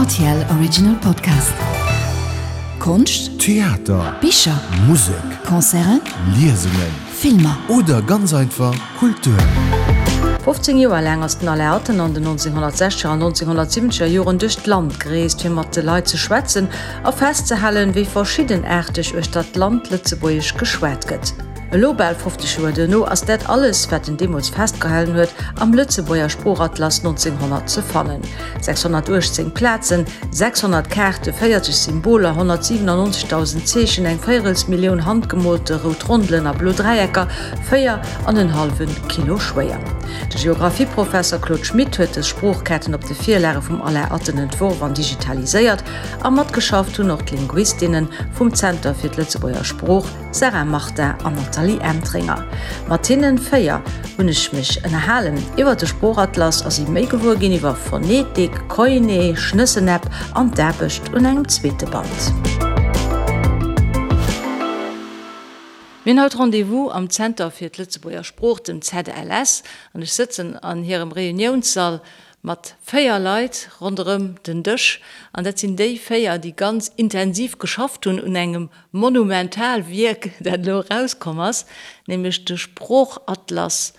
Rtl Original Podcast. Konscht, Theater, Bicher, Musek, Concerten, Liesungen, Filmer. Oder ganz einfach Kultur. 15 Joer laang ass den Alain Atten an den 1960er an 1970er Joren duerch d'Land gereest, fir mat de Leit ze schwätzen a festzehalen, wéi verschiddenaarteg uechter d'Land Lëtzebuergesch geschwat gëtt. Elo, bal 50 Joer duerno, ass dat alles, wat en deemools festgehalen huet, am Lëtzebuerger Sproochatlas 1900 ze fannen. 618 Plazen, 600 Kaarte, 40 Symboler, 197.000 Zeechen, eng Véierelsmillioun handgemoolte rout Rondelen a blo Dräiecker, 4 an en hallwe Kilo schwéier. De Geographieprofesser Claude Schmit huet dës Sproochkaarten op de Virlage vum Alain Atten entworf an digitaliséiert, a matgeschafft hunn och d'Linguistinne vum Zenter fir d'Lëtzebuerger Sprooch, Sarah Martin an Nathalie Entringer. Mat hinnen 4 hunn ech mech ënnerhalen iwwer de Sproochatlas a si méi gewuer ginn iwwer Phonetik, Koiné, Schnëssen-App an d'Aarbecht un engem zweete Band. Mir hunn haut Rendez-vous am Zenter fir d'Lëtzebuerger Sprooch, dem ZLS, an ech sëtzen an hirem Reuniounssall mat 4 Leit ronderëm den Dësch. An dat sinn déi 4, déi ganz intensiv geschafft hunn un engem Monumental Wierk, dat elo erauskomm ass, nämlech de Sproochatlas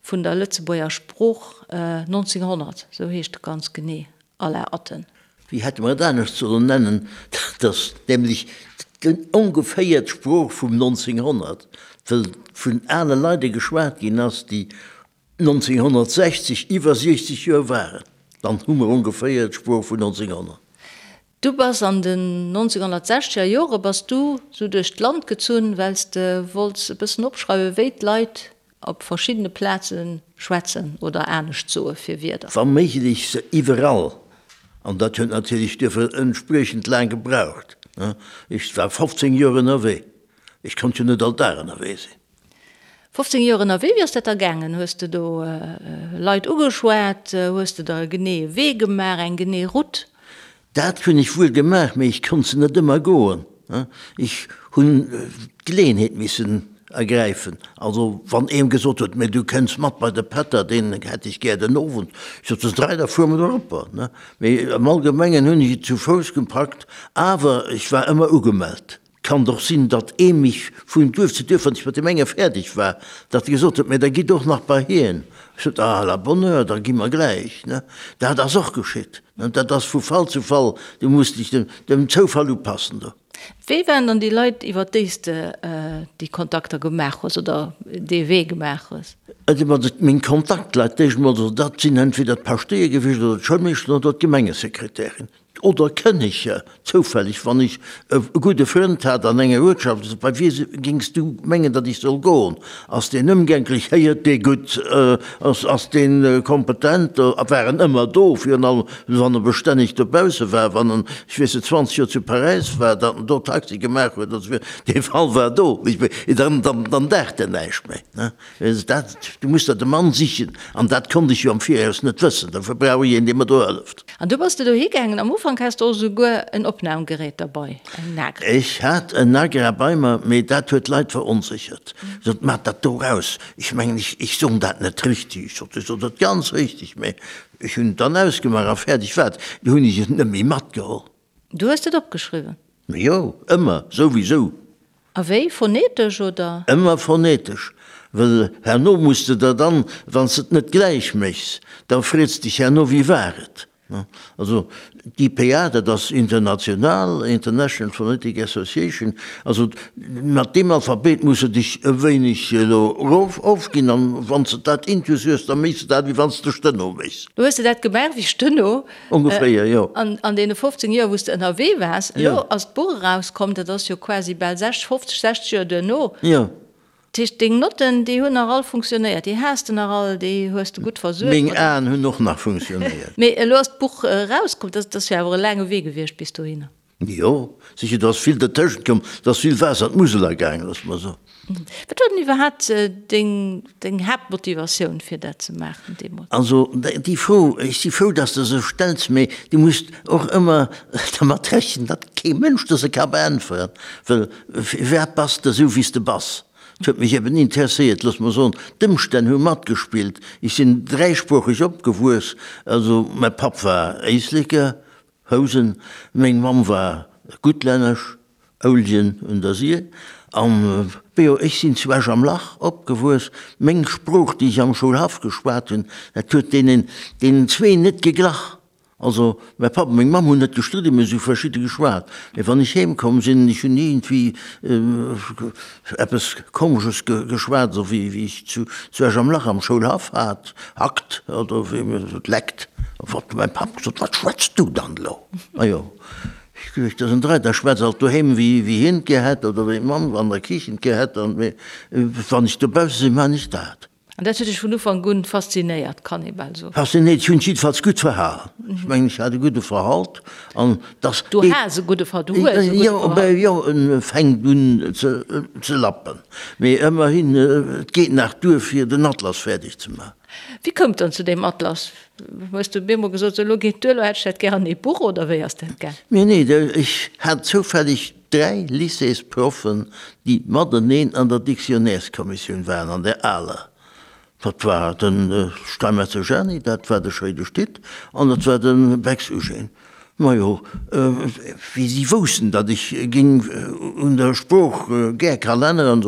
vun der Lëtzebuerger Sprooch 1900, esou heescht e ganz genee, Alain Atten. Wéi hätte mer et anescht sollen nennen? Dat ass nämlech ongeféier d'Sprooch vum 1900, wëll vun ale Leide geschwat ginn ass, déi 1960 iwwer 60 Joer waren. Dann hu mer ongeféier d'Sprooch vun 1900. Du bass an den 1960er Jore bass du sou duerch d'Land gezunn, well s de wollts e bëssen opschreiwen, wéi d'Leit op verschiddene Plaze schwätzen oder anescht soe fir Wierder. Wa méiglech se iwwerall. An dat huet natierlech duerfir entspriechend laang gebraucht. Ech war 15 Joer ënnerwee. Ech konnt jo net all Dag ënnerwee sinn. 15 Joer ënnerwee, wéi ass dat da gaangen? Hues de do Leit ugeschwat? Hues de der e geneeë Wee gemaach, eng genee Route? Dat hunn ech wuel gemaach, mee ech konnt se net ëmmer goen. Ech hunn d'Geleeënheet missen ergräifen. Also wann een gesot huet, mee du kënns mat bei de Pätter, deen hätt ech gär den Owend, ech sot, dës 3, da fuere mer eropper. Mee am Allgemengen hunn ech et zu Fouss gepackt, awer ech war ëmmer ugemellt. Kann och sinn, datt ee mech vun Duerf zu Duerf, wann ech mat deem enge fäerdeg war, datt e gesot huet, Mä da gitt och nach bei hien. Ech sot, Ah, à la bonne heure, da gi mer gläich. Ne? Dat ass och geschitt. Ne? Dat ass vu Fall zu Fall, du muss dech dem, dem Zoufall upassen do. Wie waren dann déi Leit, iwwer déi s de déi Kontakter gemaach hues oder dee Wee gemaach hues? Also mat meng Kontaktleit, déi ech emol, dat sinn entweder d'Paschtéier gewiescht oder d'Schoulmeeschteren oder d'Gemengesekretärin. Oder Kënneger, zoufälleg, wann ech e gudde Frënd hat an enger Uertschaft, esou, Bei wie géings du mengen, datt ech soll goen? Ass deen ëmgänklech? Héiert dee gutt? Ass, ass dee kompetent? A war en ëmmer do, virun allem wann e bestänneg dobausse war, wann en, ech weess net, 20 Joer zu Paräis war, datt en do Taxi gemaach huet, also dee Fall war do, dann, dann, dann daacht en näischt méi, ne? Dat, du muss der de Mann sichen, an dat konnt ech jo am Viraus net wëssen, dofir brauch ech een, dee mer do hëlleft. An du bass de dohi gaangen. Am Ufank has de och esouguer en Opnamgerät derbei, eng Nagra. Ech hat en Nagra bei mer, mee dat huet d'Leit veronséchert. Sot, Maach dat do raus, ech mengen, ech, ech soen dat net richtig. Ech sot, Ech sot dat ganz richtig, mee ech hunn et dann ausgemaach a fäerdeg war et. Du hunn ech et net méi matgeholl. Du hues et opgeschriwwen? Jo, ëmmer, souwisou. A wéi, phonetesch oder? Ëmmer phonetesch, well herno muss de der dann, wann s de et net gläich méchs, da freets dech herno, wéi war et? Also d'IPA, dat ass international, International Phonetic Association, also mat deem Alphabet muss de dech e wéineg elo erof ofginn, an wann s de dat intus hues, da méchs de dat, wéi wann s de Steno méchs. Du hues de dat gemaach wéi Steno? Ongeféier, jo. An an deene 15 Joer, wou s de ënnerwee waars, elo ass d'Buch erauskomm, dat ass jo quasi bal 60, 50, 60 Joer duerno. Jo. Dat heescht, deng Notten, déi hunn nach all funktionéiert, déi has de nach all, déi hues de gutt versuergt. Meng Aen hunn och nach funktionéiert. Mee elo ass d'Buch erauskomm, dat ass jo awer e laange Wee gewiescht bis dohinner. Jo, sicher, do ass vill dertëschent komm, do ass vill Waasser an d'Musel agaangen, loosse mer soen. Wat war denn iwwerhaapt deng, deng Haaptmotivatioun, fir dat ze maachen deemools? Also, déi Fro, ech si frou, dass de se stells, mee du muss och ëmmer dermat rechnen, datt kee Mënsch der se ka beäntweren, well firwat bass de esou, wéi s de bass? Et huet mech eben interesséiert, loosse mer soen, d'Ëmstänn hu matgespillt. Ech sinn dräisproocheg opgewuess, also mäi Papp war Éisleker. Housen. Meng Mamm war Guttlännesch, Ouljen un der Sir. An jo, ech sinn zu Esch am Lach opgewuess. Meng Sprooch, déi ech am Schoulhaff geschwat hunn, dat huet deenen, deenen zwee net geglach. Also, mäi Papp a meng Mamm hunn net gestridden, mee se hu verschidde geschwat. Mee wann ech heem komm sinn, ech hunn iergendwéi eppes Komesches geschwat, esou wéi wéi ech zu zu Esch am Lach am Schoulhaff hat, hackt oder wéi mir sot, leckt. Huet mäi Papp gesot, Wat schwätz du dann elo? Majo, ech geduecht, dat ass en Dräi, da schwätz alt doheem wéi wéi hien et gär hätt oder wéi d'Mamm an der Kichen et gär hätt. An mee wann ech dobausse sinn, maan ech dat. An dat huet dech vun Ufank un faszinéiert, kann ee bal soen. Faszinéiert? Ech hunn mech jiddefalls gutt verhalen. Ech mengen, ech hat e gudde Verhalt an dass. Du has e gudde Verhalt, du hues e gudde Verhalt. Jo, en fänkt un ze lappen. Mee ëmmerhin, et geet nach duer, fir den Atlas fäerdeg ze maachen. Wéi koum et dann zu deem Atlas? Hues du op eemol gesot, sou elo geet duer, elo hätt ech dat gär an ee Buch, oder wéi ass dat gaang? Mee nee, ech hat zoufälleg 3 Lycéesproffen, déi mateneen an der Dictionnaireskommissioun waren, an där aler. Dat war de Steinmetzer Jeanny, dat war de Schréidesch Tit an dat war de Bex Eugène. Majo, wéi si woussten, datt ech géing un der Sprooch gär kann änneren,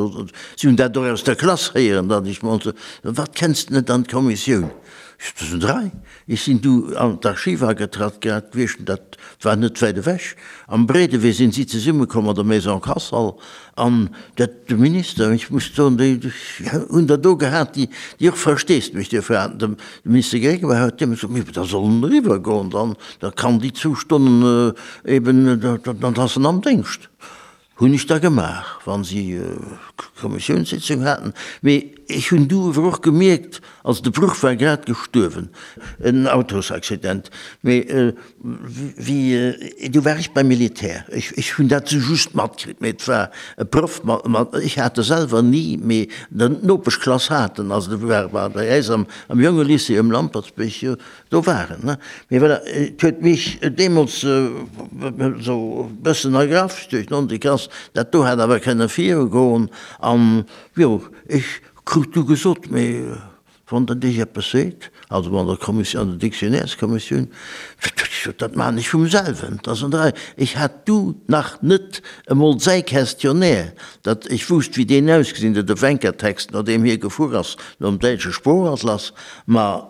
si hunn dat och aus der Klass héieren, datt ech mol sou, Wat kenns de net an d'Kommissioun? Ech sot, Dat sinn 3. Ech sinn du an d'Archiv agetratt, grad gewiescht, dat war net wäit ewech. Am Breedewee sinn si zesummekomm an der Maison Kassel an dat, de Minister, ech muss soen, déi hunn der do gehat, déi, déi och Versteesdemech duerfir haten. De Minister Grégoire huet deemools gesot, Mee da soll en eriwwer goen, dann, da kann déi zwou Stonnen eben, dann ass en am Déngscht. Hunn ech da gemaach, wa si Kommissiounssitzung haten. Mee ech hunn du ewer och gemierkt, also de Bruch war grad gestuerwen, en Autosaccident, mee wéi, du war ech beim Militär, ech, ech hunn dat sou just matkritt, mee et war e Proff, mat, ech hat e selwer ni, mee d'Nopeschklass hat en, also de war bei äis am Jongelycée um Lampertsbierg, jo. Do war en, ne? Mee voilà, et huet mech deemools esou e bëssen ergraff duerch d'Nonneklass, dat do hätt awer kënne virugoen. An jo, ech krut du gesot, mee wann dat Iech eppes seet, also an der Kommissioun, an der Dictionnaireskommissioun, dat maachen ech vum selwen, dat ass an der Rei. Ech hat du nach net emol säi Questionnaire, dat ech wousst, wéi deen ausgesinn huet, de Wencker-Text, no deem hie gefuer ass, nom däitsche Sproochatlas, Ma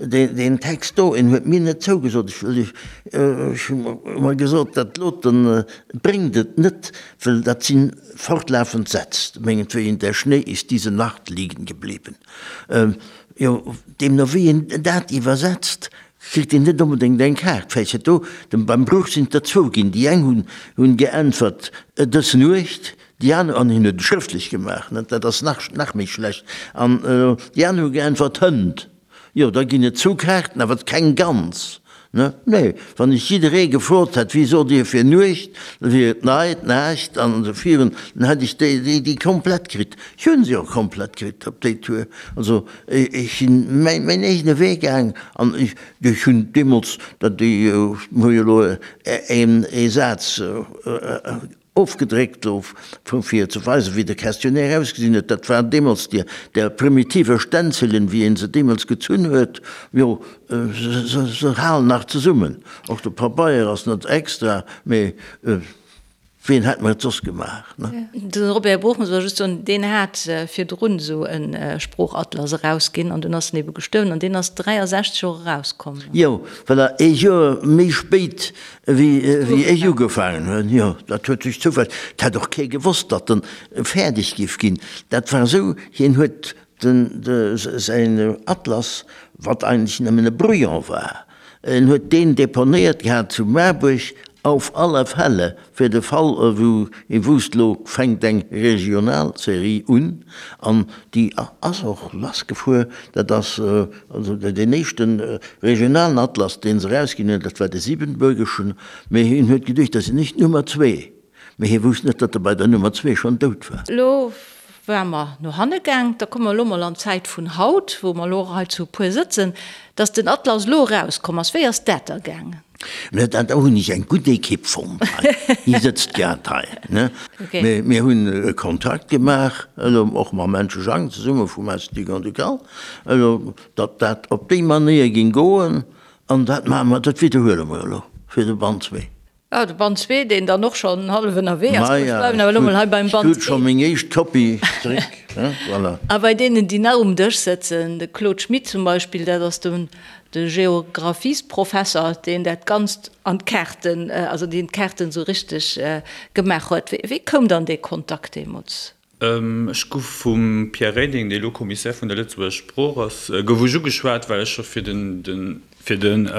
deen Text do, en huet mir net zougesot. Ech hu mer gesot, dat loten bréngt et net, well dat si fortlaufend Sätz, mengetwéien, Der Schnee ist diese Nacht liegen geblieben. Jo, deemno wéi een dat iwwersetzt, kritt een net onbedéngt eng Kaart. Vläicht huet do, beim Bruch sinn et der zwou ginn, déi eng hunn geäntwert, Dës Nuecht, Déi aner, an hien huet et schrëftlech gemaach, net, dat ass nach, nach méi schlecht, an déi aner hu geäntwert, Hënt. Jo, da ginn et zwou Kaarten, awer keng ganz, ne? Nee, wann ech jidderee gefrot hätt, Wéi sot Dir fir Nuecht? da wier et Neit, Naacht an esou virun, dann hätt ech déi, déi, déi komplett kritt. Ech hunn se och komplett kritt op déi Tour. Also, ech sinn mäin, mäin eegene Wee gaang an ech, ech hunn deemools, dat déi, mir hu jo elo een, ee Saz, Ofgedréckt gouf, fir ze weisen, wéi de Questionnaire ausgesinn huet. Dat waren deemools déi där primitive Stänzelen, wéi ee se deemools gezunn huet. Jo, se halen nach zesummen. Och de Pabeier ass net extra, mee wien hätt mer et soss gemaach, ne? De Robert Bruch, muss ech just soen, deen hat virdrun esou e Sproochatlas erausginn an dunn ass en ebe gestuerwen an deen ass 63 och erauskomm. Jo, voilà, ee Joer méi spéit Wéi ech ugefaangen hunn, jo, dat huet sech zoufälleg, et hätt och kee gewosst, datt en fäerdeg giff ginn. Dat war esou, hien huet den, de, säin Atlas, wat eigentlech nëmmen e Brouillon war, en huet deen deponéiert gehat zu Maarbuerg, auf alle Fälle, fir de Fall, wou ee wousst, lo fänkt eng Regionalserie un, an déi ass och lassgefuer. Dat ass also deen éischte regionalen Atlas, dee se erausginn hunn, dat war de siebenbürgeschen. Mee hien huet geduecht, dat sinn ech d'Nummer zwee. Mee hie wousst net, datt e bei der Nummer zwee schonn dout war. Elo ware mer no hanne gaang, da komme mer elo mol an d'Zäit vun haut, wou mer elo och hei zu e puer sëtzen, datt den Atlas elo erauskomm ass. Wéi ass dat da gaangen? Mä da hunn ech eng gutt Ekipp fonnt hei. Déi sëtzt grad hei, ne? Mir, mir hunn e Kontrakt gemaach, elo och mam Menche Jang zesumme vum Institut Grand-Ducal, elo, datt dat op déi Manéier géing goen. An dat maache mer, dat widderhuele mer elo. Fir de Band zwee. Ah, de Band zwee, deen dann och schonn hallef ënnerwee ass. Ech bleiwen awer elo mol hei beim Band ee. Ech krut scho meng éischt Kopie zeréck, voilà. A bei deenen, déi nach um Dësch sëtzen, de Claude Schmit zum Beispill, dat ass de de Geographiesprofesser, deen dat Ganzt an d'Kaarten, also deen d'Kaarten esou richteg gemaach huet. Wéi koum dann dee Kontakt deemools? Ech gouf vum Pierre Reding, dee elo Commissaire vun der Lëtzebuerger Sprooch ass, gouf ech ugeschwat, well ech scho fir den, fir den,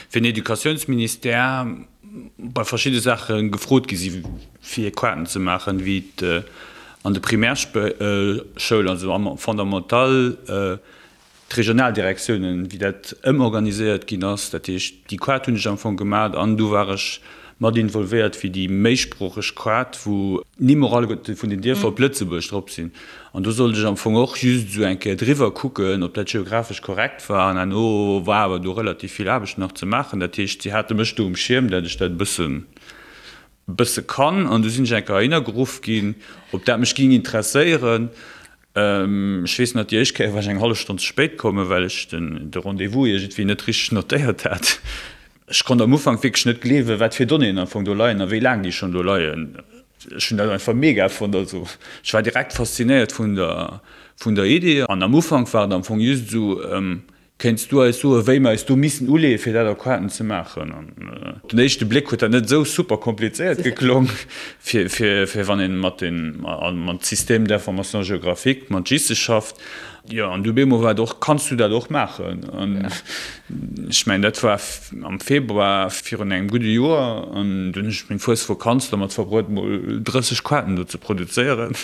fir den Educatiounsministère bei verschidde Saache gefrot gi si fir Kaarten ze maachen, wéi et an de Primärschoul, also am Fondamental, D'Regionaldirektiounen, wéi dat ëmorganiséiert ginn ass, dat heescht, déi Quart hunn ech am Fong gemat an du war ech mat involvéiert fir déi méisproocheg Quart, wou d'Nimm och alleguerte vun den Dierfer op Lëtzebuerg drop sinn. An do sollt ech am Fong och just esou eng Kéier driwwer kucken, ob dat geographesch korrekt war. An herno war awer do relativ vill Aarbecht nach ze maachen. Dat heescht, si hate mech do um Schierm, dat ech dat e bëssen, bësse kann. An du sinn ech eng Kéier heihinner geruff ginn, ob dat mech géing interesséieren. Ech weess nach, déi éischt Kéier war ech eng hallef Stonn ze spéit kommen, well ech de Rendez-vous iergendwéi net richteg notéiert hat. Ech konnt am Ufank wierklech net gleewen, wat fir Donnéeën am Fong do leien a wéi laang déi schonn do leien. Ech hunn dat einfach mega fonnt. Also ech war direkt faszinéiert vun der, vun der Idee. An am Ufank war et am Fong just esou, Kéints du eis soen, wéi mer eis do missen uleeën, fir dat Aquaten ze maachen? An op den éischte Bléck huet dat net esou super komplizéiert geklong, fir, fir, fir wann een mat den, mat Système d'information géographique, mat GISe schafft. Jo, an du bemol war et och, Kanns du dat och maachen? An ech mengen, dat war am Februar virun engem gudde Joer, an dunn hunn ech meng Fuesvakanz domat verbruet, mol 30 Quaten do ze produzéieren.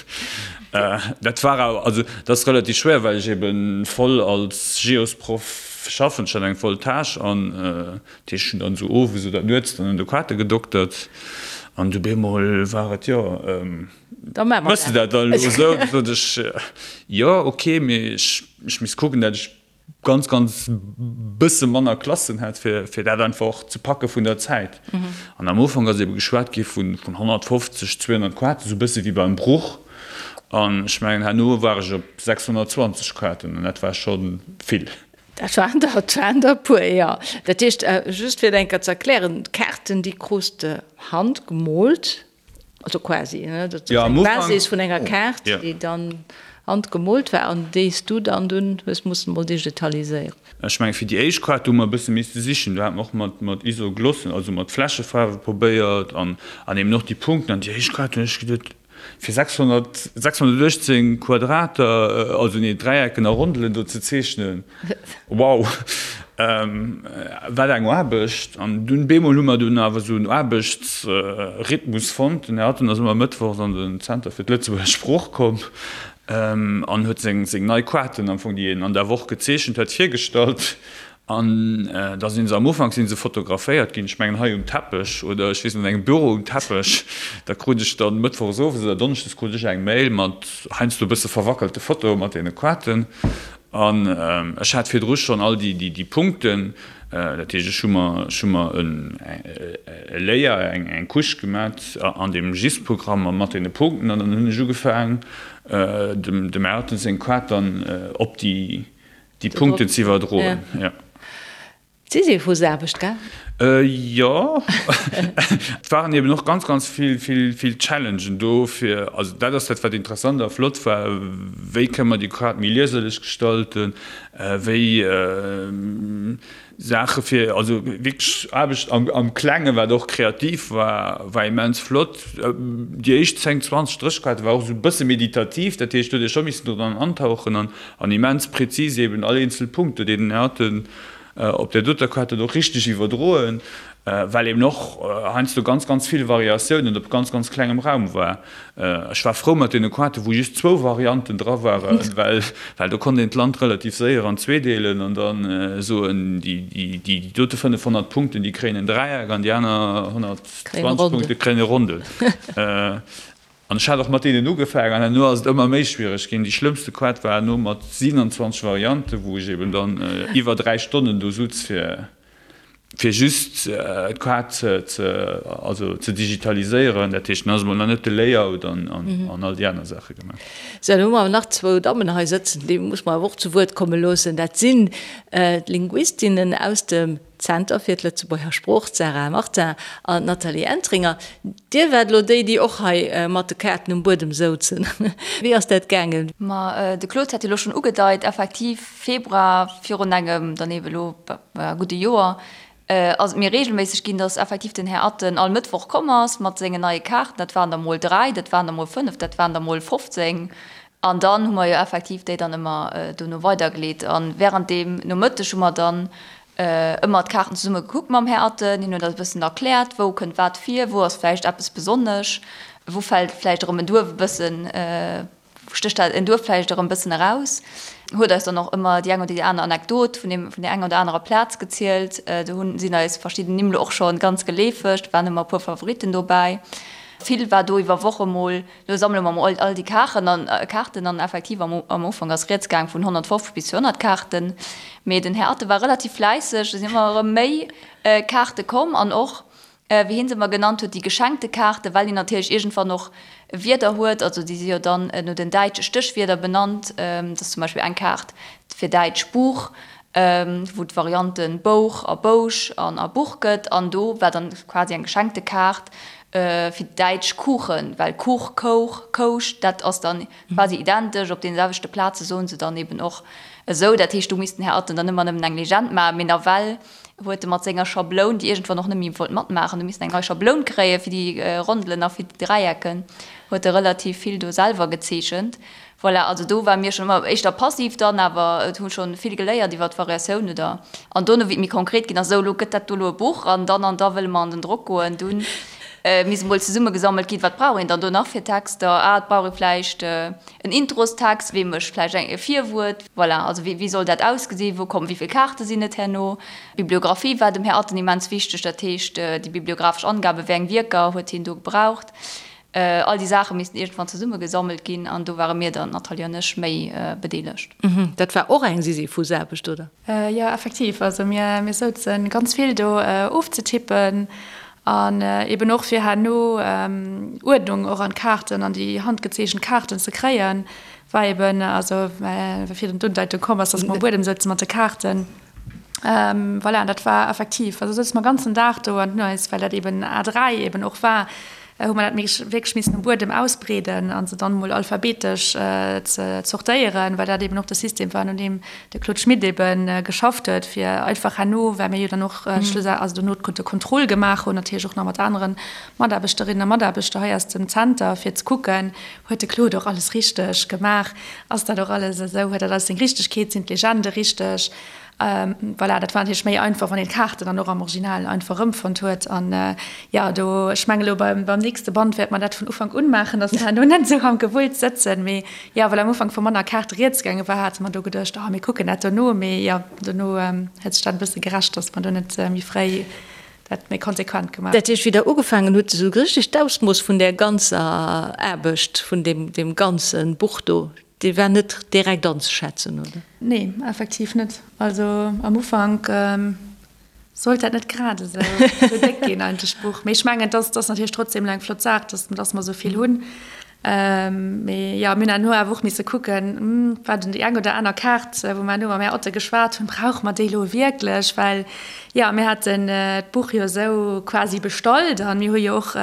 Dat war awer, also dat ass relativ schwéier, well ech ebe voll als Geosproff schaffen, ech hat eng voll Tâche an dat heescht, ech hunn dann esou owes oder nuets dann un de Quate gedoktert an du bemol war et, jo, méchs de dat dann elo esou? Da sot ech, jo, ok, mee ech misst kucken, dat ech ganz ganz bësse manner Klassen hätt, fir fir dat einfach och ze packe vun der Zäit. An am Ufank ass ebe geschwat gi vun vun 150, 200 Quaten, esou bësse wéi beim Bruch. An ech mengen herno war ech op 620 Quaten an dat war scho vill. Dat waren der, dat waren der e puer, jo. Dat heescht, just fir et eng Kéier ze erklären, d'Kaarten déi krus de handgemoolt. Also quasi, ne? Dat ass eng Basis vun enger Kaart, déi dann handgemoolt war an déi s du dann dunn hues mussen emol digitaliséieren. Ech mengen, fir déi éischt Kaart, do hu mer e bësse misste sichen. Do hate mer och mat, mat Isoglossen, also mat Fläschefaarwe probéiert an, an eben och déi Punkten. An déi éischt Kaart hunn ech geduet, fir 600, 618 Quadrater, also nee, Dräiecken a Rondelen do ze zeechnen, wow, wat eng Aarbecht! An dunn bemol hu mer dunn awer esou en Aarbechtsrhythmus fonnt. Den Här Atten ass ëmmer mëttwochs an den Zenter fir d'Lëtzebuerger Sprooch komm an huet seng, seng nei Quaten am Fong, déi en an der Woch gezeechent huet, virgestallt. An da sinn se am Ufank sinn se fotograféiert ginn, ech mengen hei um Teppech oder ech weess net, an engem Büro um Teppech. Da krut ech dann mëttwochs owes oder donneschdes krut ech eng Mail mat heiansdo e bësse verwackelte Fotoe mat deene Quaten. An ech hat virdru schonn all déi, déi Punkten. Dat heescht, ech hu mer, ech hu mer e Layer, eng, eng Couche gemat an deem GIS-Programm mat deene Punkten. An dann hunn ech ugefaang, dem, dem Ayrton seng Quat dann op déi, Déi Punkten ze iwwerdroen, jo. Sisyphusaarbecht, gell? Jo. Et waren eben och ganz, ganz vill, vill, vill Challengen do fir, also dat ass dat, wat interessant a flott war, wéi kënne mer déi Kaart méi lieserlech gestalten, wéi Saache fir, also wierklech Aarbecht am, am Klengen, wat och kreativ war, war immens flott. Déi éischt 10, 20, 30 Kaarte war och esou e bësse meditativ, dat heescht, do huet ee scho missen dran antauchen an, an immens präzis eben all eenzel Punkt, do deen den Här Atten op där doter Kaart huet och richteg iwwerdroen, well eben och heiansdo ganz, ganz vill Variatiounen op ganz, ganz klengem Raum war. Ech war frou mat deene Kaarten, wou just zwou Varianten dra waren, well, well do konnt een d'Land relativ séier an zwee deelen an da soen, déi, déi dote 500 Punkten, déi kréien en Dräieck an déi aner 120 Punkte kréien e Rondel. An ech hat och mat deenen ugefaangen an herno ass et ëmmer méi schwiereg ginn. Déi schlëmmste Quad war herno mat 27 Varianten, wou ech eben dann iwwer 3 Stonnen do sutz fir fir just d'Quad ze ze also ze digitaliséieren. Dat heescht, dann ass emol nach net de Layout an an all déi aner Saache gemaach. Sou, dann hu mer awer nach zwou Dammen hei sëtzen, déi muss mer awer och zu Wuert komme loossen. Dat sinn d'Linguistinnen aus dem. Zenter fir d'Lëtzebuerger Sprooch, d'Sarah Martin an d'Nathalie Entringer. Dir waart elo déi, déi och hei mat de Kaarten um Buedem souzen. Wéi ass dat gaangen? Ma de Claude hat jo elo schonn ugedeit, effektiv Februar virun engem dann eebe elo gudde Joer ass et méi reegelméisseg ginn, datt effektiv den Här Atten all Mëttwoch komm ass mat sengen neie Kaarten. Dat waren der mol 3, dat waren der mol 5, dat waren der mol 15. An dann hu mer jo effektiv déi dann ëmmer dono weidergeleet. A während deem Nomëtteg hu mer dann ëmmer d'Kaarten zesumme gekuckt mam Här Atten. Hien huet eis e bëssen erkläert, wou kënnt wat vir, wou ass vläicht eppes besonnesch, wou fält vläicht erëm en Duerf e bëssen, wou stécht dat en Duerf vläicht erëm e bëssen eraus. Huet eis dann och ëmmer déi eng oder déi aner Anekdot vun deem, vun där enger oder anerer Plaz gezielt. Do hunn, sinn eis verschidden Nimm lo och scho ganz geleefeg, do waren ëmmer e puer Favoritten dobäi. Vill war do iwwer Woche mol Lo sammele mer mol all déi Kaarten an Kaarten an effektiv am am Ufank ass rieds gaang vun 150 bis 200 Kaarten. Mee den Här Atte war relativ fläisseg, et sinn ëmmer erëm méi Kaarte komm an och, wéi hien se ëmmer genannt huet, déi geschenkte Kaarten, well hien natierlech iergendwann och Wierder huet, also déi si jo dann no den däitsche Stéchwierder benannt, dat ass zum Beispill eng Kaart fir däitsch Buch, wou d'Varianten Bouch a Bousch an a Buch gëtt an do war dann quasi eng geschenkte Kaart fir däitsch Kuchen, well Kuch, Kouch, Kousch, dat ass dann quasi identesch, op deene selwechte Plaze soen se dann eben och esou. Dat heescht, do misst den Här Atten dann ëmmer nëmmen eng Legend maachen, mee nawell huet e mat senger Schabloun, déi iergendwann och net méi wollt matmaachen, do missten eng nei Schabloun kréie fir déi Rondelen a fir déi Dräiecken, huet e relativ vill do selwer gezeechent. Voilà, also do ware mir schonn ëmmer éischter passiv dann, awer et hu schonn vill geléiert iwwer d'Variatioun oder an dono wéi et méi konkret ginn ass, esou elo gëtt dat do elo e Buch an dann an da wëlle mer an den Drock goen, dunn misst emol zesummegesammelt ginn, wat brauch een dann do nach fir Texter, ah et brauch ee vläicht en Introstext, wee mécht vläicht eng e Virwuert, voilà, also wéi wéi soll dat ausgesinn, wou kommen, wéi vill Kaarte sinn et herno. D'Bibliographie war dem Här Atten immens wichteg, dat heescht déi bibliographesch Angaben, wéi eng Wierker huet hien do gebraucht. All déi Saache missten iergendwann zesummegesammelt ginn an do ware mir dann, d'Nathalie an ech, méi bedeelegt. Dat war och eng Sisyphusaarbecht, oder? Jo, effektiv. Also mir mir souze ganz vill do ofzetippen an eben och fir herno Uerdnung och an d'Kaarten, an déi handgezeechent Kaarten ze kréien, war eben, also well virun d'Undeitung komm ass, dass mer um Buedem souze mat de Kaarten. Voilà, an dat war effektiv, also souze mer ganzen Dag do an hunn eis, well dat eben A3 eben och war, hu mer dat wierklech missen um Buedem ausbreeden a se dann emol alphabetesch ze zortéieren, well dat eben och de System war, no deem de Claude Schmit ebe geschafft huet, fir einfach herno, well mir jo dann och schlussendlech, also dono de Contrôle gemaach hunn, natierlech och nach mat anere Mataarbechterinnen a Mataarbechter hei aus dem Zenter, fir ze kucken, Huet de Claude och alles richteg gemaach? Ass dat och alles esou? Huet dat alles seng Richtegkeet? Sinn d'Legende richteg? Voilà, dat war natierlech méi einfach, wann een d'Kaarten dann och am Original einfach erëmfonnt huet. An jo, do, ech mengen elo beim, beim nächste Band wäerte mer dat vun Ufank un maachen, dass mer herno net esou am Gewulls sëtzen. Mee jo, well am Ufank vu manner Kaarte rieds gaange war, hate mer do geduecht, oh mir kucken dat dono. Mee jo, dono huet sech dat e bësse gerächt, dass mer do net méi fréi dat méi konsequent gemaach. Dat heescht, wéi Der ugefaangen hutt, esou richteg d'Ausmooss vun där ganzer Aarbecht, vun deem, deem ganze Buch do, dee war net direkt anzeschätzen, oder? Nee, effektiv net. Also am Ufank sollt dat net grad esou déck ginn eigentlech, d'Buch. Mee ech mengen, et ass, et ass natierlech trotzdem elo eng flott Saach, dass, dass mer esou vill hunn. Mee jo, mir hunn herno awer och misse kucken, war denn déi eng oder aner Kaart, wou mer herno mam Här Otte geschwat hunn, brauche mer déi elo wierklech? Well jo, mir haten d'Buch jo esou quasi bestallt a mir hu jo och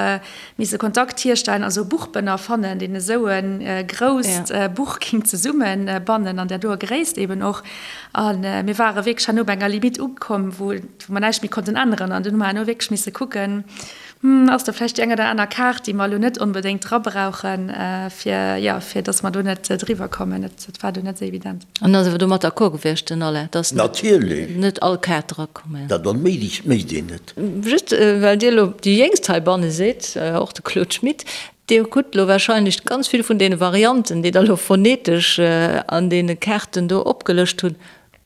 misse Kontakt hierstellen, also e Buchbënner fannen, deen esou e grousst Buch géing zesummebannen an där doer Gréisst eben och. A mir ware wierklech herno bei enger Limite ukomm, wou mer näischt méi konnten änneren an dunn hu mer herno wierklech misse kucken, Hm, ass do vläicht déi eng oder aner Kaart, déi mer elo net onbedéngt dra brauchen, fir, jo, fir dass mer do net driwwer kommen. Dat, dat war do net esou evident. An ass awer domat d'accord gewiescht, den Alain, dass Natierlech. net all Kaart drakomm ass? Dat onméiglechst mécht een net. Just well Dir elo déi Jéngst heibanne sidd, och de Claude Schmit, Dir hutt elo wahrscheinlech ganz vill vun deene Varianten, déi Der elo phonetesch an deene Kaarten do opgelëscht hunn,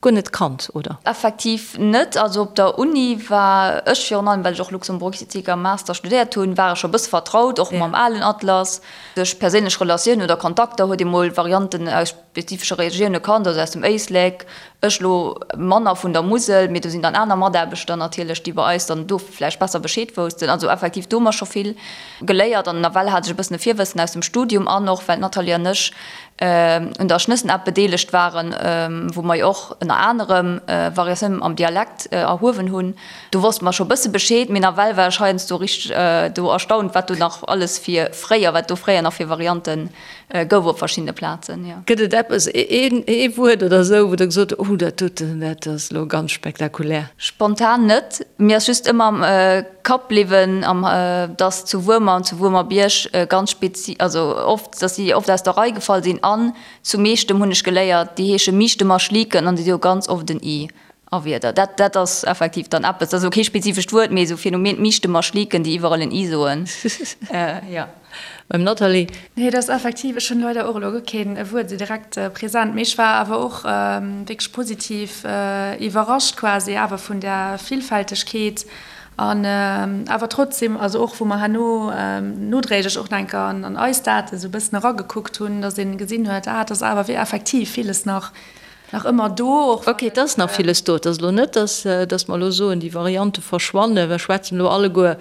Guer net kannt, oder? Effektiv net. Also op der Uni war ech virun allem, well ech och Luxemburgistik am Master studéiert hunn, war ech scho e bësse vertraut, och mam alen Atlas. Duerch perséinlech Relatiounen oder Kontakter huet ee mol Varianten aus. spezifesche Regioune kannt, also aus dem Éislek, ech lo manner vun der Musel, mee do sinn dann aner Mataarbechter natierlech, déi bei eis dann do vläicht besser Bescheed woussten. Also effektiv do hu mer scho vill geléiert an nawell hat ech e bëssen e Virwëssen aus dem Studium an och well d'Nathalie an ech un der Schnëssen-App bedeelegt waren, wou mer jo och ënner anerem Variatiounen am Dialekt erhuewen hunn. Do wosste mer scho bësse Bescheed, mee nawell war ech heiansdo richteg do erstaunt, wat do nach alles fir fréier, wat do fréier nach fir Variante gouf op verschiddene Plazen, jo. Gëtt et eppes, een, ee Wuert oder esou, wou Der gesot hutt, Oh, dat doten, dat ass elo ganz spektakulär? Spontan net. Mir ass just ëmmer am Kapp bliwwen, am, dass zu Wuermer an zu Wuermerbierg ganz spezi, also oft, dass si oft aus der Rei gefall sinn an zu Meechtem hunn ech geléiert, déi heesche Miichtemer Schliken an déi hu ganz oft en i a Wierder. Dat, dat ass effektiv dann eppes, dat ass elo kee spezifescht Wuert, mee esou Phänomen, d'Miichtemer Schliken, déi iwwerall en i soen, jo. Beim Nathalie. Nee, dat ass effektiv, ech hunn leider och elo guer keen Wuert esou direkt present, mee ech war awer och wierklech positiv iwwerrascht quasi awer vun där Villfältegkeet an awer trotzdem, also och wou mer herno nodréiglech och nach eng Kéier an eis Date esou e bëssen eragekuckt hunn, datt een gesinn huet, ah, et ass awer wéi effektiv villes nach nach ëmmer do, och wann. Ok, et ass nach villes do. Et ass elo net, datt datt mer elo soen, déi Variante verschwannen. Mer schwätzen elo alleguer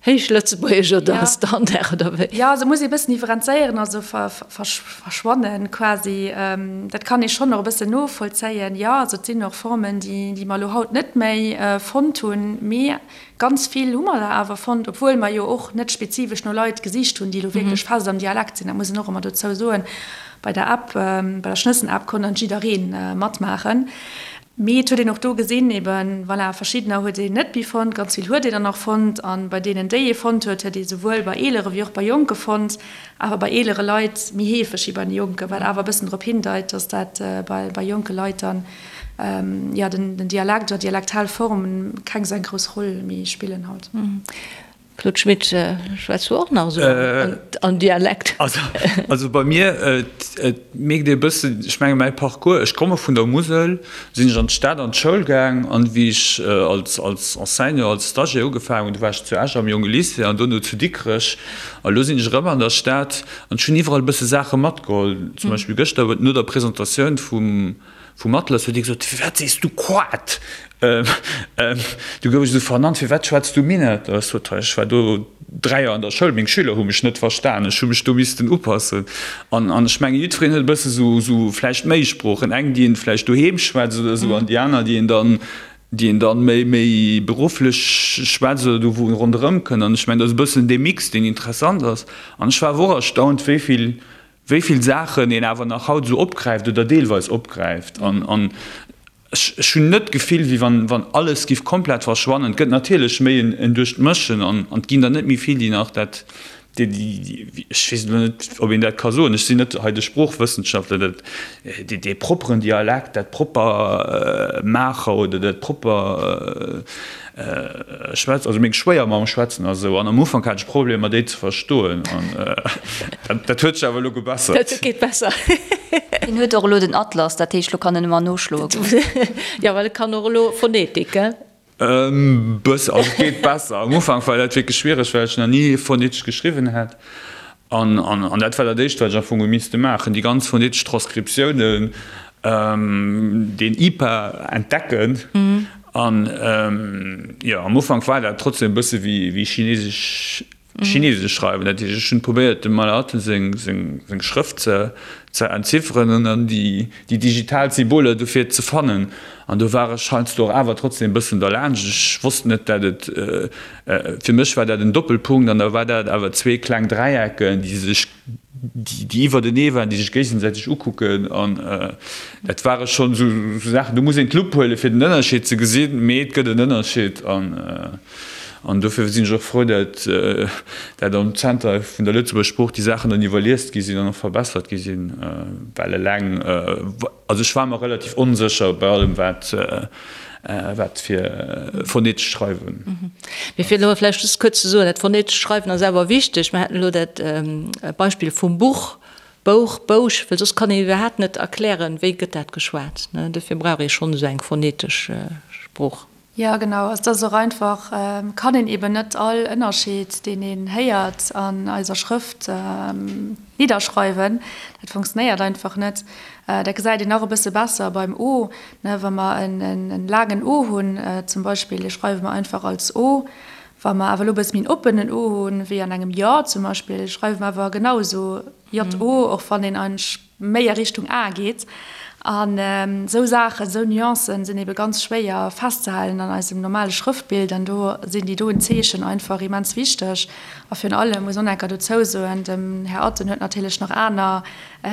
Héichlëtzebuergesch oder Standard oder wéi? Jo, also muss ee bëssen differenzéieren, also verschwannen quasi, dat kann ee schonn och e bëssen novollzéien. Jo, also et sinn och Formen, déi mer elo haut net méi fonnt hunn, mee ganz vill hu mer der awer fonnt, obwuel mer jo och net spezifesch no Leit gesicht hunn, déi elo wierklech fest am Dialekt sinn. Dat muss een och ëmmer dozou soen. Bei der App, bei der Schnëssen-App konnt dann jidderee matmaachen. Mee et huet een och do gesinn, eben, voilà, verschiddener huet een net méi fonnt, ganz vill huet een dann nach fonnt. A bei deenen, déi ee fonnt huet, huet ee souwuel bei eelere wéi och bei Jonke fonnt, awer bei eelere Leit méi heefeg wéi bei de Jonken, wat awer e bëssen drop hindeit, dass dat bei jonke Leit dann, jo, den Dialekt oder dialektal Form keng esou eng grouss Roll méi spillen haut. Claude Schmit, schwätz du och nach esou an Dialekt? Also bei mir, et mierkt ee bëssen, ech menge mäi Parcours, ech komme vun der Musel, sinn ech an d'Stad an d'Schoul gaang an wéi ech als Enseignant, als Stagiaire ugefaangen hunn, du war ech zu Esch am Jonge Lycée an dono zu Dikrech a lo sinn ech erëm an der Stad an ech hunn iwwerall e bësse Saache matgeholl. Zum Beispill gëschter no der Presentatioun vum Vum Atlas huet hie gesot, Firwat sees du Quat? Du gouf ech esou vernannt, Firwat schwätz du Minett? Ech sot, Ech war do 3 Joer an der Schoul, meng Schüler hu mech net verstan, ech hu mech do missten upassen. An ech mengen, jiddwereen huet e bësse sou vläicht méi Sproochen, eng, déi een vläicht doheem schwätzt oder esou, an déi aner, déi een dann, déi een dann méi, méi berufflech schwätzt oder do wou en ronderëm kënnt. An ech mengen, dat ass e bëssen dee Mix, deen interessant ass. An ech war awer och erstaunt, wéi vill wéi vill Saachen een awer nach haut esou opgräift oder deelweis opgräift. An ech hunn net d'Gefill, wéi wann alles giff komplett verschwannen. Et gëtt natierlech méi en Duerchmëschen an et ginn der net méi vill, déi nach dat, déi, ech weess elo net, ob een dat ka soen, ech sinn net hei de Sproochwëssenschaftler, dat, dee propperen Dialekt, dat propper Maacher oder dat propper Schwätz, also meng Schwéiermamm schwätzen a sou, an am Ufank hat ech Problemer déi ze verstoen, an dat huet sech awer elo gebessert. Dat geet besser. Hien huet och elo den Atlas, dat heescht elo kann en ëmmer noschloe goen. Jo, well e kann och elo Phonetik, gell? E bëssen, also et geet besser. Am Ufank war dat wierklech schwiereg, well ech nach ni phonetesch geschriwwen hat. An, an dat war dat Éischt, wat ech am Fong hu misste maachen, déi ganz phonetesch Transkriptiounen, deen IPA entdecken. An, jo, am Ufank war dat trotzdem e bësse wéi, wéi chinesesch, chinesesch schreiwen. Dat heescht, ech hunn probéiert, dem Maler seng, seng, seng Schrëft ze, ze entzifferen an dann déi, déi digital Symboler dofir ze fannen. An do war ech heiansdo och awer trotzdem e bëssen derlaanscht. Ech wosst net, dat et, Fir mech war dat en Doppelpunkt an da war dat awer zwee kleng Dräiecken, déi sech, déi iwwertenee waren, déi sech géigesäiteg ukucken an dat ware schonn esou Saachen, do muss een d'Lupp huelen, fir den Ënnerscheed ze gesinn, mee et gëtt en Ënnerscheed an an dofir sinn ech och frou, dat dat am Zenter vun der Lëtzebuerger Sprooch déi Saachen dann iwwerliest gi sinn an och verbessert gi sinn, well eleng, also ech war mer relativ onsécher bei allem wat Wat fir phonetesch Schreiwen. Mee fir elo vläicht just kuerz ze soen, dat phonetesch Schreiwen ass awer wichteg. Mer haten elo dat Beispill vum Buch, Bouch, Bouch, well soss kann een iwwerhaapt net erklären, wéi gëtt dat geschwat. Dofir brauch ee schonn esou eng phonetesch Sprooch. Jo, genau. Also et ass och einfach, kann een eben net all Ënnerscheed, deen een héiert an eiser Schrëft, nidderschreiwen. Dat funktionéiert einfach net. Dat gesäit een nach e bësse besser beim O, ne, wa mer en laangen O hunn zum Beispill, dee schreiwe mer einfach als O. Wa mer awer elo e bësse méi en oppenen O hunn, wéi an engem J zum Beispill, schreiwe mer awer genau esou JO, och wann een eigentlech méi a Richtung A geet. An esou Saachen, esou Nuancen sinn ebe ganz schwéier festzehalen an eisem normale Schrëftbild. An do sinn déi doen Zeechen einfach immens wichteg. A virun allem muss och enker dozou soen, dem Här Atten huet natierlech nach aner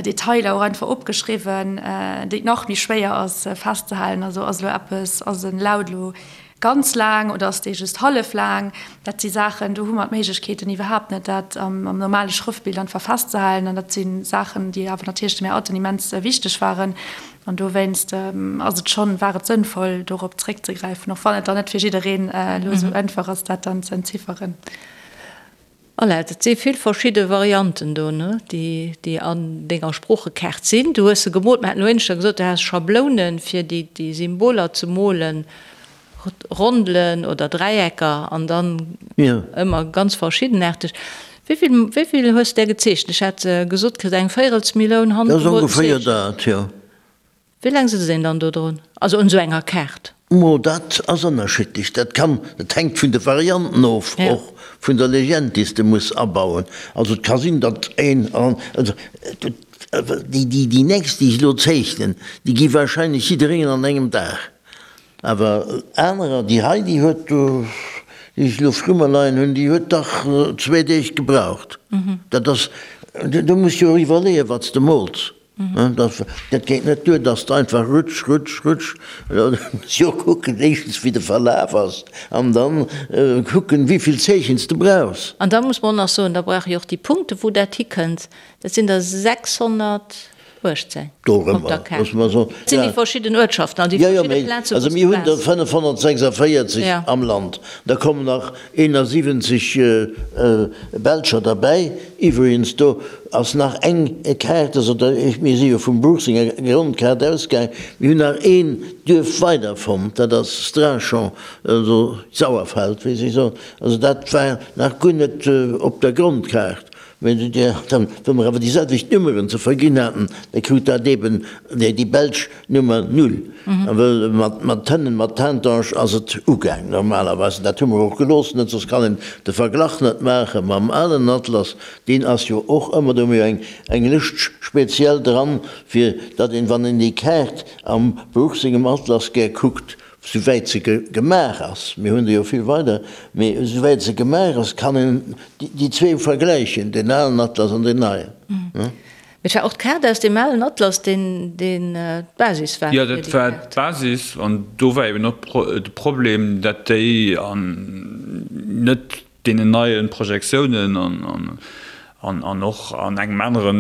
Detailer och einfach opgeschriwwen, déi et nach méi schwéier ass festzehalen. Also ass elo eppes, ass en Laut elo Ganz laang oder ass dee just hallef laang? Dat si Saachen, do hu mer d'Méiglechkeeten iwwerhaapt net, dat am normale Schrëftbild einfach festzehalen. An dat si Saachen, déi awer natierlech dem Här Atten immens wichteg waren. An dowéinst ass et schonn, war et sënnvoll, dorop zréckzegräifen, och wann et dann net fir jiddereen elo esou einfach ass, dat dann ze entzifferen. Voilà, et si vill verschidde Varianten do, ne, déi, déi an denger Sproochekaart sinn. Du hues se gemoolt, mir haten elo éineschter gesot, du häss Schablounen, fir déi, déi Symboler ze molen, Rondelen oder Dräiecker an dann ëmmer ganz verschiddenaarteg. Wéi vill, wéi vill hues de där gezeechent? Ech hat gesot kritt, eng Véirelsmilloun Dat ass handgemolten ongeféier Zeechen. dat, jo. Wéi laang sëtzt een dann do drun? Also un esou enger Kaart? Mo dat ass ënnerschiddlech. Dat kann, dat hänkt vun de Varianten of, och vun der Legend, déi s de muss abauen. Also et ka sinn, datt een, also déi, déi, déi nächst, déi ech elo zeechnen, déi gi wahrscheinlech jiddereen an engem Dag. Awer anerer, déi hei, déi huet, déi ech elo vru mer leien hunn, déi huet dach zwee Deeg gebraucht. Dat ass, du muss jo och iwwerleeën, wat s de mools. Dat geet net duer, dass de einfach rutsch, rutsch, rutsch. Du muss jo kucken, éischtens wéi de Verlaf ass an dann kucken, wéi vill Zeechen s de brauchs. An da muss mer och nach soen, da brauche jo och déi Punkte wou dat hikënnt, dat sinn der 618 op der Kaart. Dat sinn déi verschidden Uertschaften an déi verschidde Plaze wou s Also mir du hunn der waars. 546 am Land, da kommen nach 71 Belscher derbäi. Iwwregens, do ass nach eng Kaart, also da, mir si jo vum Bruch senger Grondkaart ausgaang, mir hunn nach een Duerf weider fonnt, dat ass Strachan, also Sauerfeld, wéi si soen. Also dat war nach guer net op der Grondkaart. Mä dann, wa mer awer déi selwecht Nummeren ze verginn haten, da krut dat eeben déi belsch Nummer null. A well mat hënnen, mat Tintange ass et ugaang normalerweis. An dat hu mer och gelooss, net soss kann een de Verglach net maache mam alen Atlas. Deen ass jo och ëmmer, do hu mir jo eng eng Lëscht speziell dran, fir datt een, wann een déi Kaart am Bruch sengem Atlas gär kuckt, souwäit se gemaach ass, mir hunn der jo vill weider, mee souwäit se gemaach ass, kann een déi zwee vergläichen, deen alen Atlas an deen neien. Mee et war och d'Kaart aus deem alen Atlas, deen d'Basis war Jo, dat war d'Basis. An do war eben och de Problem, dat déi an net deenen neie Projektiounen an och an engem anere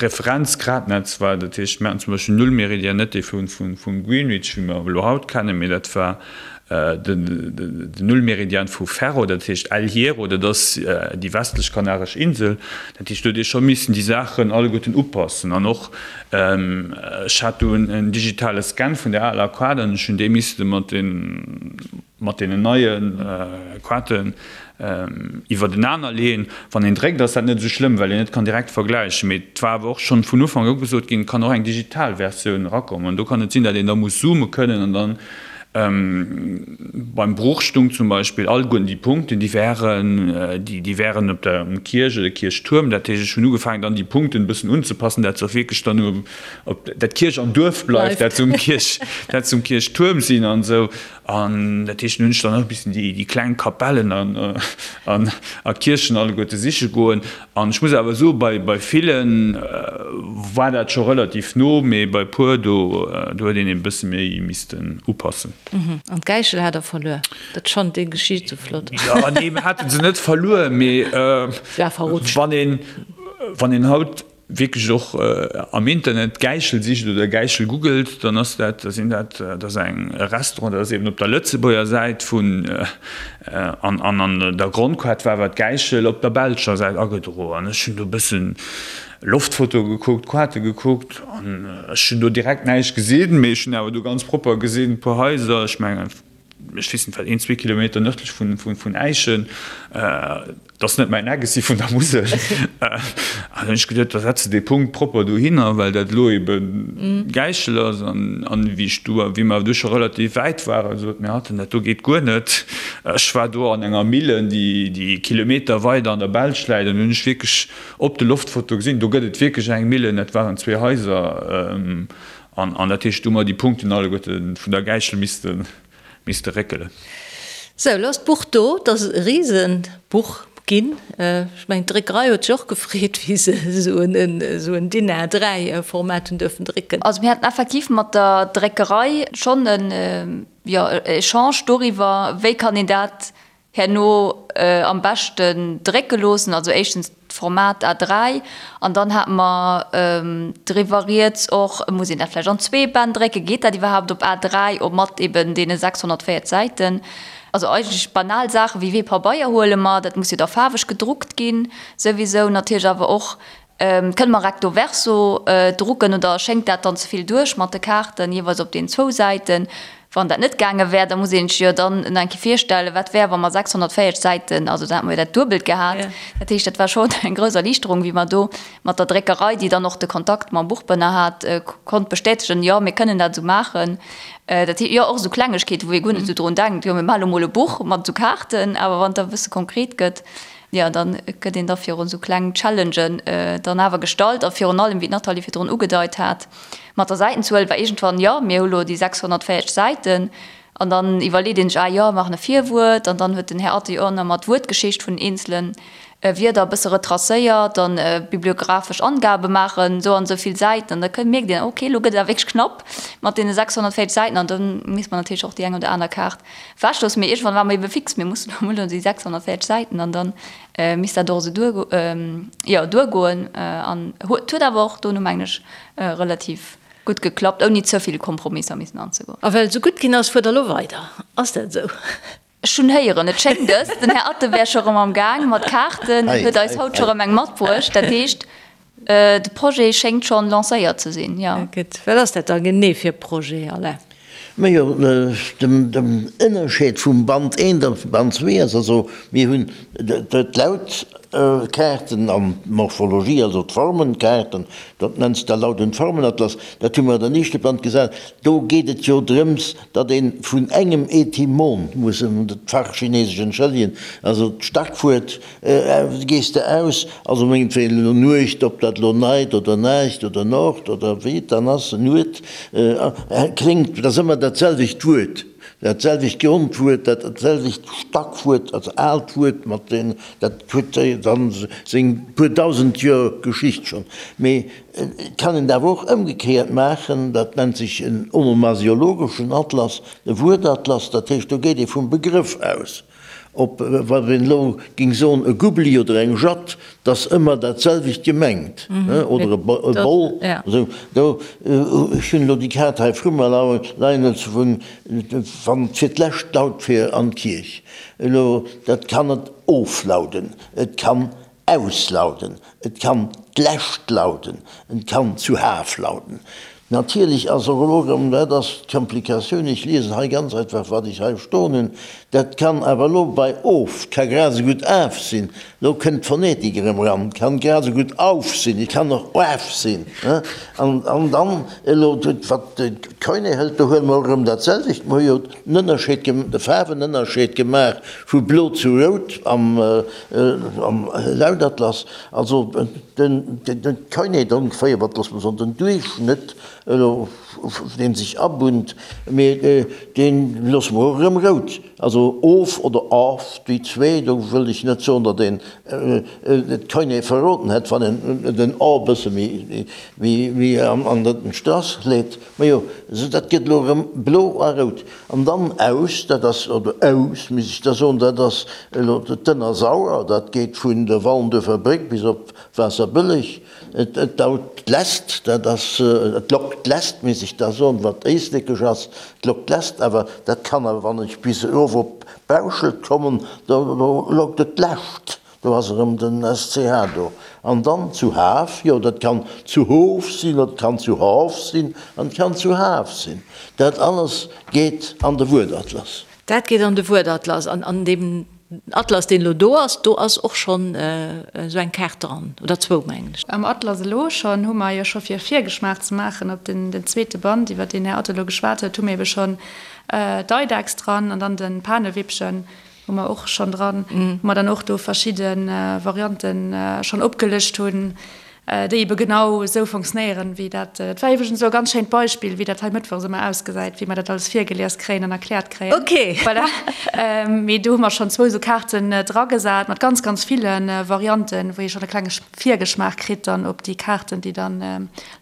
Referenzgradnetz war. Dat heescht, mir haten zum Beispill Nullmeridian, net dee vum Greenwich, wéi mer elo haut kennen, mee dat war Den Nullmeridian vu Ferro, dat heescht El Hierro, dat ass déi westlech Kanaresch Insel. Dat heescht, do huet ee scho missen déi Saachen alleguerten upassen. An och, ech hat do en digitale Scan vun der aler Kaart an ech hunn dee misste mat mat deenen neie Kaarten iwwertenaner leeën. Wann een dréckt, ass dat net esou schlëmm, well een net kann direkt vergläichen. Mee et war awer och schonn vun Ufank u gesot ginn, et kann och eng digital Versioun erakommen. An do kann et sinn, datt een da muss zoome kënnen an dann Beim Bruch stung zum Beispill alleguerten déi Punkten, déi wären, déi wären op der um Kierch oder Kierchtuerm. Dat heescht, ech hunn ugefaangen dann déi Punkten e bëssen unzepassen, dat se och wierklech dann um op dat Kierch am Duerf bleift, dat se um Kierch, dat se um Kierchtuerm sinn an esou. An dat heescht, dann hunn ech dann och e bëssen déi déi kleng Kapellen an an a Kierchen alleguerte siche goen. An ech muss awer soen, bei bei villen war dat scho relativ no, mee bei puer do do huet een e bësse méi missten upassen. An d'Gäichel hat der verluer? Dat ech fannen déi Geschicht sou flott. Jo, nee, mir hate se net verluer, mee wann een wann een haut wierklech och am Internet Gäichel sicht oder Gäichel googelt, dann ass dat, da sinn dat, dat ass eng e Restaurant, dat ass eben op der Lëtzebuerger Säit vun an an an der Grondkaart war awer d'Gäichel op der belscher Säit agedroen. An ech hunn do e bëssen Loftfotoe gekuckt, Kaarte gekuckt an ech hunn do direkt näischt gesinn, mee ech hunn awer do ganz propper gesinn e puer Haiser, ech mengen. ech weess net wat, een, zwee Kilometer nërdlech vun Äischen. Dat ass net mäin Eck, ech si vun der Musel. An dann hunn ech geduet, da setz de dee Punkt propper dohinner, well dat elo ebe Gäichel ass. An wéi ech do, wéi mer du scho relativ wäit waren, sot mir hatten, dat do geet guer net. Ech war do an enger Millen, déi Kilometer weider an der Belsch läit, an hunn ech wierklech op de Loftfoto gesinn, do gëtt et wierklech eng Millen, dat waren zwee Haiser. An dat heescht, do hu mer déi Punkten alleguerte vun der Gäichel misste misste réckelen. Sou, elo ass d'Buch do. Et ass e Risebuch ginn. Ech mengen, d'Dréckerei huet sech och gefreet, wéi se esou en DIN A3 Format hunn duerfen drécken. Also mir haten effektiv mat der Dréckerei schonn en, jo, Echange doriwwer, wéi kann een dat herno am beschten drécke loossen, also éischtens d'Format A3 an dann hate mer driwwer rieds och, muss een dat vläicht an zwee Bänn drécken, geet dat iwwerhaapt op A3 o mat eben deene 640 Säiten? Also eigentlech banal Saache wéi wee Pabeier huele mer, dat muss jo da faarweg gedruckt ginn souwisou, natierlech awer och Kënne mer recto verso drucken oder schéngt dat dann ze vill duerch mat de Kaarten jeeweils op den zwou Säiten? Wann dat net gaange wär, da muss een sech jo dann nach eng Kéier virstellen, wat wär, wa mer 640 Säiten, also da hätte mer jo dat Duebelt gehat. Dat heescht, dat war schonn eng grouss Erliichterung, wéi mer do mat der Dréckerei, déi dann och de Kontakt mam Buchbënner hat, konnt bestätegen, jo, mir kënnen dat esou maachen. Dat heescht, jo, och esou Klengegkeeten, wou ee guer net esou drun denkt, jo, mir maache lo mol e Buch mat esou Kaarten, awer wann et da e bësse konkret gëtt, Jo, da gëtt een da virun esou kleng Challengen dann awer gestallt. A virun allem, wéi d'Nathalie virdrun ugedeit hat, mat der Säitenzuel war iergendwann, jo, mir hu lo déi 640 Säiten. An dann iwwerleet een sech, ah jo, maachen e Virwuert. An dann huet den Här Atty och nach mat d'Wuertgeschicht vun den eenzele Wierder e bësse retracéiert an bibliographesch Angabe maachen, esou an esou vill Säiten. An da mierkt een, okay, elo gëtt et awer wierklech knapp mat deene 640 Säiten. An da misst mer natierlech och déi eng oder aner Kaart Wechlos, mee iergendwann ware mer ebe fix, mir mussen elo emol déi 640 Säiten an dann misst dat och esou duer, jo, duergoen. An huet huet awer och dono, mengen ech, relativ gutt geklappt, ouni ze vill Kompromisser missen anzegoen. A well et esou gutt ginn ass, fuert Der elo weider, ass dat esou? Ech hunn héieren, et schéngt es, den Här Atten wär scho erëm am Gaang mat Kaarten, huet eis haut scho erëm eng matbruecht. Dat heescht, De Projet schéngt schonn lancéiert ze sinn, jo. Gutt, wat ass dat da genee fir e Projet, Alain? Majo, den Ënnerscheed vum Band eent a Band zwee ass also, mir hunn d'Lautkaarten an d'Morphologie, also d'Formenkaarten, dat nennt sech da Laut und Formenatlas, dat hu mer an den éischte Band gesat. Do geet et jo drëms, datt ee vun engem Etymon, muss en d'Fachchinesesch entschëllegen, also d'Starkwuert, Gees de aus, also mengetwéilen elo Nuecht, ob dat elo Night oder Naacht oder Nord oder wéi et dann ass, Nuet, kléngt, dat ass ëmmer dat selwecht Wuert, dat selwecht Grondwuert, dat selwecht Stackwuert, also aalt Wuert mat den, dat huet dann seng puer dausend Joer Geschicht schonn. Mee et kann een et awer och ëmgekéiert maachen, dat nennt sech en onomasiologeschen Atlas, e Wuertatlas, dat heescht do geet ee vum Begrëff aus. Ob, wann een elo ging soen e Gubli oder eng Jatt, 't ass ëmmer dat selwecht gemengt, oder e Boll, esou. Do, ech hunn elo déi Kaart hei vru mer leien, also vun, wann fir d'lescht laut fir an d'Kierch. Elo, dat kann et oflauden, et kann auslauden, et kann d'lescht lauden, et kann zu Haf lauden. Natierlech ass och elo erëm, dat ass d'Komplikatioun, ech liesen hei ganz einfach, wat ech hei stoen hunn, dat kann awer elo bei of, ka grad esou gutt af sinn, elo kënnt d'Phonetik erëm eran, et kann grad esou gutt auf sinn, et kann och af sinn. An dann elo, wat d'Koine hëlt, do huele mer och erëm dat selwecht, mer hu jo den Ënnerscheed, de Faarwenënnerscheed gemaach vu blo zu rout am Am Laudatlas, also den Koiné ongeféier, wat loosse mer soen, den Duerchschnëtt, elo dee sech abunnt, mee dee loosse mer och erëm rout, also of oder of, déi zwee, do wëll ech net soen, datt een d'Koiné verroden hätt, wann een den o e bësse méi an den Strass leet. Majo, esou dat gëtt elo erëm blo a rout. An dann aus, dat ass, oder aus, misst ech da soen, dat ass elo d'Ënnersauer, dat geet vun der Wallenduerfer Bréck bis op Waasserbëlleg. Et daut d'Lest, dat ass, et lockt d'Lest, misst ech da soen, wat éislekesch ass, et lockt d'Lest, awer dat kann awer, wann ech bis erof op Bauschelt kommen, do lockt et d'Lescht. Do ass erëm den SCH do. An dann zu Haf, jo, dat kann zu Hof sinn, dat kann zu Hâf sinn an et kann zu Haf sinn. Dat alles geet an de Wuertatlas. Dat geet an de Wuertatlas. An an deem Atlas, deen elo do ass, do ass och schonn esou eng Kaart dran, oder zwou, mengen ech. Am Atlas elo schonn hu mer jo scho fir e Virgeschmaach ze maachen op den den zweete Band, iwwer deen Här Atto elo geschwat huet, hu mir ebe schonn d'Eidechs dran an dann de Panewippchen hu mer och schonn dran, wou mer dann och do verschidde Varianten schonn opgelëscht hunn, déi ebe genau esou fonctionnéieren, wéi dat. Et war iwwregens elo e ganz schéint Beispill, wéi dat hei mëttwochs ëmmer ausgesäit, wéi mer dat alles virgelies kréien an erkläert kréien. Okay. Voilà. Mee do hu mer schonn zwou esou Kaarten dragesat mat ganz, ganz ville Varianten, wou ee schonn e klenge Virgeschmaach kritt dann op déi Kaarten, déi dann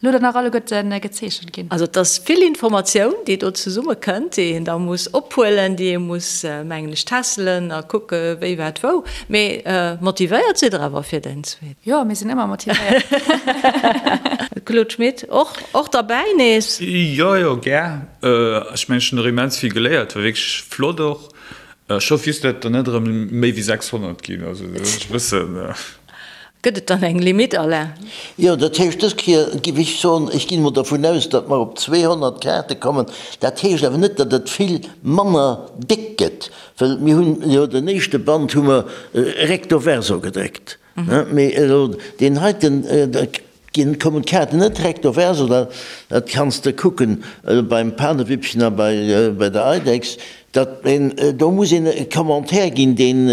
elo dann nach alleguerte gezeechent ginn. Also et ass vill Informatioun, déi do zesummekënnt, déi een da muss ophuelen, déi ee muss, mengen ech, tässelen a kucke wéi, wat, wou. Mee motivéiert sidd Der awer fir den zweeten? Jo, mir sinn ëmmer motivéiert. Claude Schmit, och, och derbäi nees? Jo, jo, gär. Ech mengen, ech hunn och immens vill geléiert, war wierklech flott och. Ech hoff just, datt der net erëm méi wéi 600 ginn, also dat ass e bëssen. Gëtt et dann eng Limite, Alain? Jo, dat heescht, dës Kéier géif ech soen, ech ginn emol dervun aus, datt mer op 200 Kaarte kommen. Dat heescht awer net, datt et vill manner déck gëtt, well mir hunn jo den éischte Band hu mer recto verso gedréckt, mee elo deen heiten, da ginn, kommen d'Kaarten net recto verso, dat kanns de kucken beim Panewippchen a bei der Eidechs, Dat een, do muss een e Commentaire ginn, deen,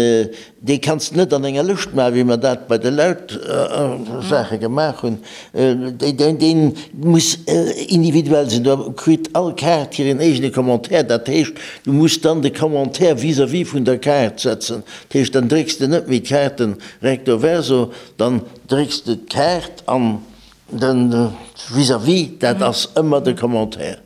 dee kanns de net an enger Lëscht maachen, wéi mer dat bei de Lautsaache gemaach hunn. Deen, deen muss individuell sinn. Do kritt all Kaart hiren eegene Commentaire. Dat heescht, du muss dann de Commentaire vis-à-vis vun der Kaart setzen. Dat heescht, dann drécks de net méi d'Kaarten recto verso, dann drécks de d'Kaart an de vis-à-vis, dat ass ëmmer de Commentaire.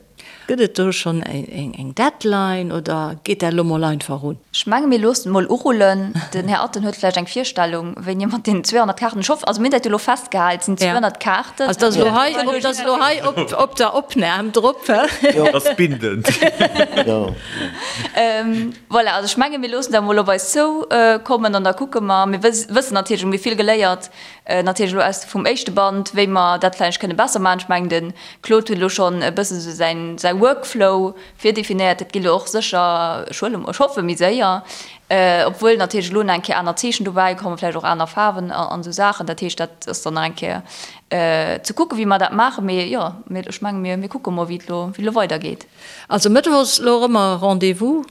Gëtt et do schonn eng Deadline oder geet dat elo mol einfach un? Ech menge mir loossen et mol urullen. Den Här Atten huet vläicht eng Virstellung, wéini mat deenen 200 Kaarten. Ech hoffen, also mir hunn dat jo elo festgehal, et sinn 200 Kaarten. Also dat ass elo hei, dat ass elo hei op der Opnam drop. Dat ass bindend. Voilà, also ech menge mir loossen dat mol op eis zoukommen an da kucke mer. Mir wëssen natierlech, mir hu vill geléiert natierlech elo aus vum éischte Band, wéi mer dat vläicht kënne besser maachen. Ech mengen, de Claude huet elo schonn e bësse sou säin, säi Workflow virdefinéiert. Dat geet elo och sécher, ech huele, ech hoffe méi séier, obwuel natierlech elo nach eng Kéier aner Zeechen dobäi kommen, vläicht och aner Faarwen an esou Saachen. Dat heescht, dat ass dann nach eng Kéier ze kucken, wéi mer dat maachen. Mee jo, mir, ech menge mir, mir kucke mol, wéi et elo, wéi et elo weidergeet. Also Mëttwochs elo erëm e Rendez-vous.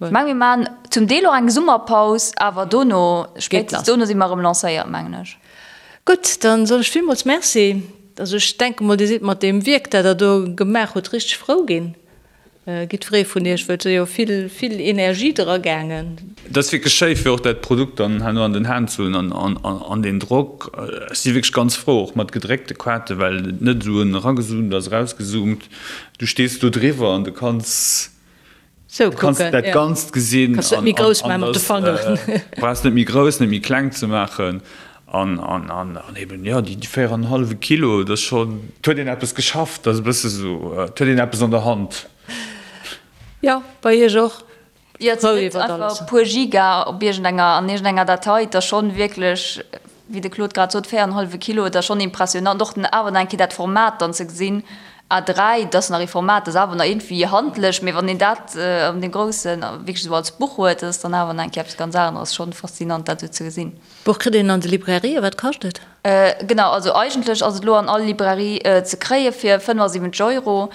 Ech mengen, mir maachen zum Deel och eng Summerpaus, awer dono, spéitstens dono si mer erëm lancéiert, mengen ech. Gutt, dann soen ech villmools Merci. Also ech denke mol, Dir sidd mat deem Wierk, dat Der do gemaach hutt, richteg frou ginn, jiddweree vun Iech, well et ass jo vill, vill Energie dra gaangen. Et ass wierklech schéi, fir och dat Produkt dann herno an den Hänn ze hunn an deen Drock. Ech si wierklech ganz frou, och mat gedréckte Kaarte, well et net esou en eragezoomt ass, erausgezoomt. Du stees do driwwer an du kanns Sou Du kanns kucken, dat ja. Ganzt gesinn Kanns net méi grouss maachen mat de Fangeren. Brauchs net méi grouss, net méi kleng ze maachen an an an an eben jo déi 4 an en hallwe Kilo, dat ass schonn, et huet een eppes geschafft, dat ass e bësse sou, et huet een eppes an der Hand. Jo, bei iech och? Jo, et Frou sinn net iwwert einfach alles. e puer Giga op iergendenger, an iergendenger Datei, et ass schonn wierklech, wéi de Claude grad sot, 4 an en hallwe Kilo, et ass schonn impressionant och awer nach eng Kéier dat Format dann ze gesinn, A3, dat ass nach ee Format, dat ass awer nach iergendwéi handlech, mee wann een dat an deem Groussen wierklech esou als Buch huet, dat ass dann awer nach eng Kéier eppes ganz aneres. Schonn faszinant, dat esou ze gesinn. D'Buch kritt een an de Librairien, wat kascht et? Genau, also eigentlech ass et elo an all Librairie ze kréie fir 75 Euro.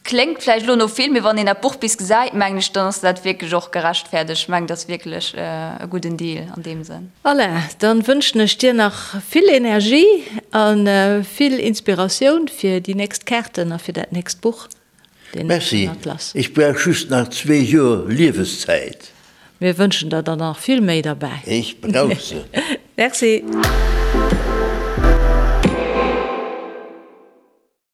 Kléngt vläicht elo no vill, mee wann een dat Buch bis gesäit, mengen ech, dann ass dat wierklech och gerechtfäerdegt. Ech mengen, dat ass wierklech e gudden Deal an deem Sënn. Alain, dann wënschen ech dir nach vill Energie a vill Inspiratioun fir déi nächst Kaarten a fir dat nächst Buch, den Merci, Atlas. ech brauch just nach zwee Joer Lieweszäit. Mir wënschen der der nach vill méi derbäi. Ech brauch se. Merci.